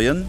Moien.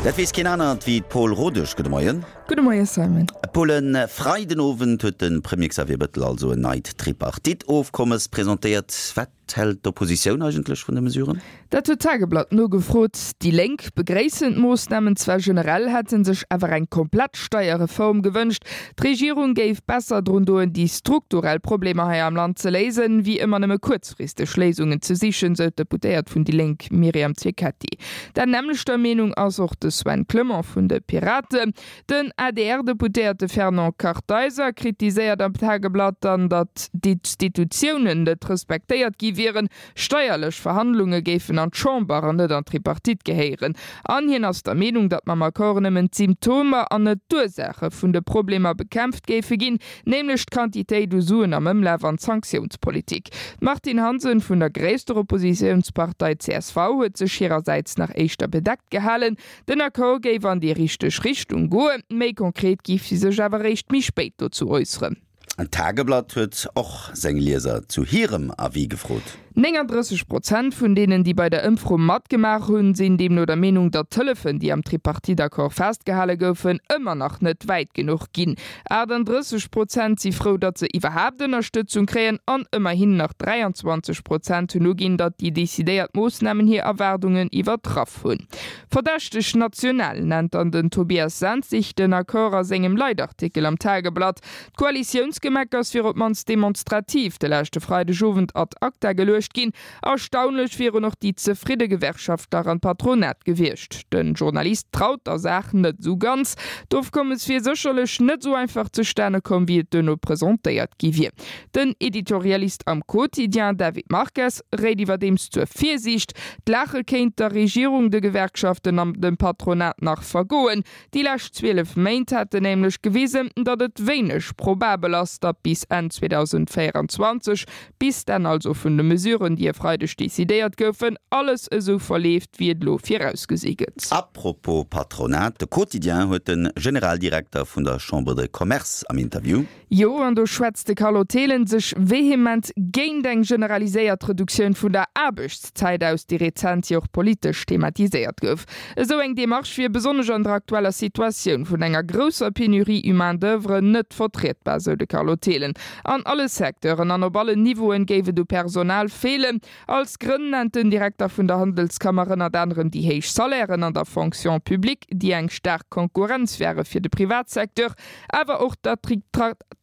Dat weess keen anert wéi d'Paule Rodesch. Gudde Moien. Gudde Moie Simon. Paul, e Freidenowend huet de Premier Xavier Bettel also en neit Tripartite-Ofkommes presentéiert. Wat hält d'Oppositioun eigentlech vun de Mesuren? Dat huet d'Tageblatt nogefrot. Déi Lénk begréissen d'Moossnamen zwar generell, hätte sech awer eng komplett Steierreform gewënscht. D'Regierung géif besser drun doen, déi strukturell Problemer hei am Land ze léisen, wéi ëmmer nëmme kuerzfristeg Léisungen ze sichen, sou d'Deputéiert vun déi Lénk Myriam Cecchetti. Der nämmlechter Meenung ass och de Sven Clement vun de Piraten. Den ADR-Deputéierte Fernand Kartheiser kritiséiert am Tageblatt dann, datt d'Institutiounen net respektéiert gi wieren, Steierlech Verhandlunge géifen an d'Chamber an net an d'Tripartite gehéieren. An hien ass der Meenung, datt mam Accord nëmmen d'Symptomer an net d'Ursaache vun de Problemer bekämpft géife ginn, nämlech d'Quantitéit u Suen am Ëmlaf an d'Sanktiounspolitik. D'Martine Hansen vun der gréisster Oppositiounspartei csv huet sech hirersäits nach éischter bedeckt gehalen. Den Accord géif an déi richteg Richtung goen, méi konkret géif si sech awer eréischt méi spéit dozou äusseren. D'Tageblatt huet och seng Lieser zu hirem Avis gefrot. 39 Prozent vun deenen, déi bei der Ëmfro matgemaach hunn, sinn deemno der Meenung, datt d'Hëllefen, déi am Tripartite-Accord festgehale goufen, ëmmer nach net wäit genuch ginn. 38 Prozent si frou, datt se iwwerhaapt Ënnerstëtzung kréien an ëmmerhin nach 23 Prozent hunn uginn, datt déi decidéiert Moossnamen hir Erwaardungen iwwertraff hunn. Verdächteg national nennt dann den Tobias Senzig den Accord a sengem Leitartikel am Tageblatt. D'Koalitiounsgemeckers wier op d'mannst demonstrativ de leschte Freidegowend ad acta geluecht ginn. Erstaunlech wieren och déi zefridde Gewerkschaftler an d'Patronat gewiescht. De Journalist traut der Saach net esou ganz. D'Ofkommes wier sécherlech net esou einfach zustane komm, wéi et duerno presentéiert gi wier. Den Editorialist am Quotidien, David Marques, réit iwwerdeems zur Virsiicht. D'Laache kéint der Regierung, de Gewerkschaften an dem Patronat nach vergoen. Déi lescht 12 Méint hätten nämlech gewisen, datt et wéineg probabel ass, datt bis Enn 2024, bis d'Enn also vun de Mesuren, déi e Freideg decidéiert goufen, alles esou verleeft, wéi et elo virausgesi gëtt. A propos Patronat, de Quotidien huet de Generaldirekter vun der Chambre de Commerce am Interview. Jo, an do schwätzt de Carlo Thelen sech vehement géint eng generaliséiert Reduktioun vun der Aarbechtszäit aus, déi rezent jo och politesch thematiséiert gouf. Esou eng Demarche wier besonnesch an der aktueller Situatioun vun enger grousser Penurie u Main d'oeuvre net vertrietbar, sou de Carlo Thelen. An alle Secteuren an op allen Niveauen géif et u Personal feelen. Als Grënn nennt den Direkter vun der Handelskammer ënnert anerem déi héich Salairen an der Fonction publique, déi eng staark Konkurrenz wäre fir de Privatsecteur, awer och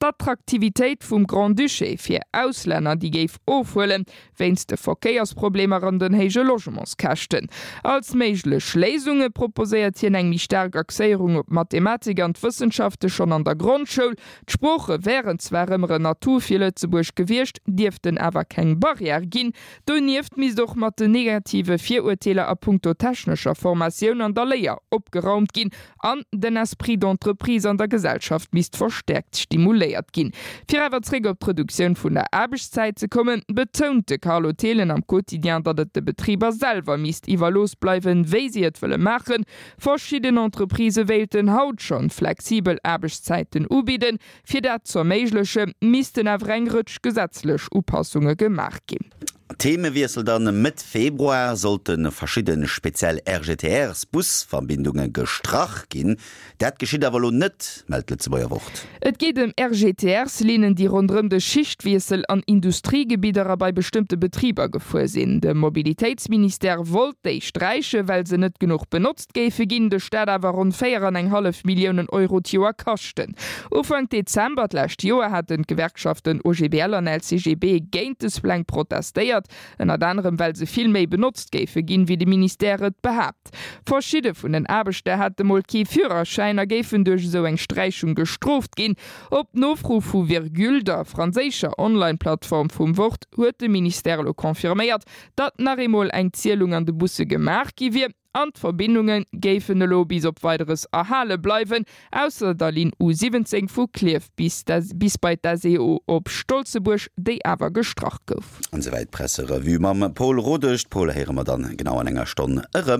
d'Attraktivitéit vum Grand-Duché fir Auslänner, déi géif ofhuelen, wéinst de Verkéiersproblemer an den héije Logementskäschten. Als méiglech Léisunge proposéiert hien eng méi staark Axéierung op d'Mathematik an d'Wëssenschafte schonn an der Grondschoul. D'Sprooche wären zwar ëmmer en Atout fir Lëtzebuerg gewiescht, dierften awer keng Barrière ginn. Donieft misst och mat den negative Virurteeler a punkto technescher Formatioun an der Léier opgeraumt ginn An den Esprit d'entreprise an der Gesellschaft misst verstäerkt stimuléiert ginn. Fir awer zréck op d'Reduktioun vun der Aarbechtszäit ze kommen, betount de Carlo Thelen am Quotidien, datt et de Betriber selwer misst iwwerlooss bleiwen, wéi si et wëlle maachen. Verschidden Entreprisë wéilten haut schonn flexibel Aarbechtszäiten ubidden. Fir dat z'erméigleche missten awer eng Rëtsch gesetzlech Upassunge gemaach ginn. Themewiessel dann, Mëtt Februar sollte verschidde speziell RGTRs-Busverbindunge gestrach ginn. Dat geschitt awer elo net, mellt d'Lëtzebuerger Wort. Et geet ëm RGTRs-Linnen, déi ronderëm de Schichtwiessel an Industriegebidder a bei bestëmmte Betriber gefuer sinn. De Mobilitéitsministère wollt déi sträichen, well se net genuch benotzt géife ginn, de Staat awer ronn 4 an eng hallef Milliounen Euro d'Joer kaschten. Ufank Dezember d'lescht Joer haten d'Gewerkschaften OGBL an LCGB géint des Pläng protestéiert, ënnert anerem well se vill méi benotzt géife ginn, wéi de Ministère et behaapt. Verschidde vun den Aarbechter hätte mol kee Führerschäin a géifen duerch esou eng Sträichung gestrooft ginn. Op Nofro vu Virgule, der franséischer Online-Plattform vum Wort, huet de Ministère elo confirméiert, datt nach eemol eng Zielung an de Busse gemaach gi wier. An d'Verbindunge géifen elo bis op Weideres erhale bleiwen, ausser der Linn U 17 vu Klierf bis bis bei d'SEO op Stolzebuerg, déi awer gestrach gouf. An esouwäit d'Presserevue mam Paul Rodesch. D'Paul héiere mer dann genau an enger Stonn erëm.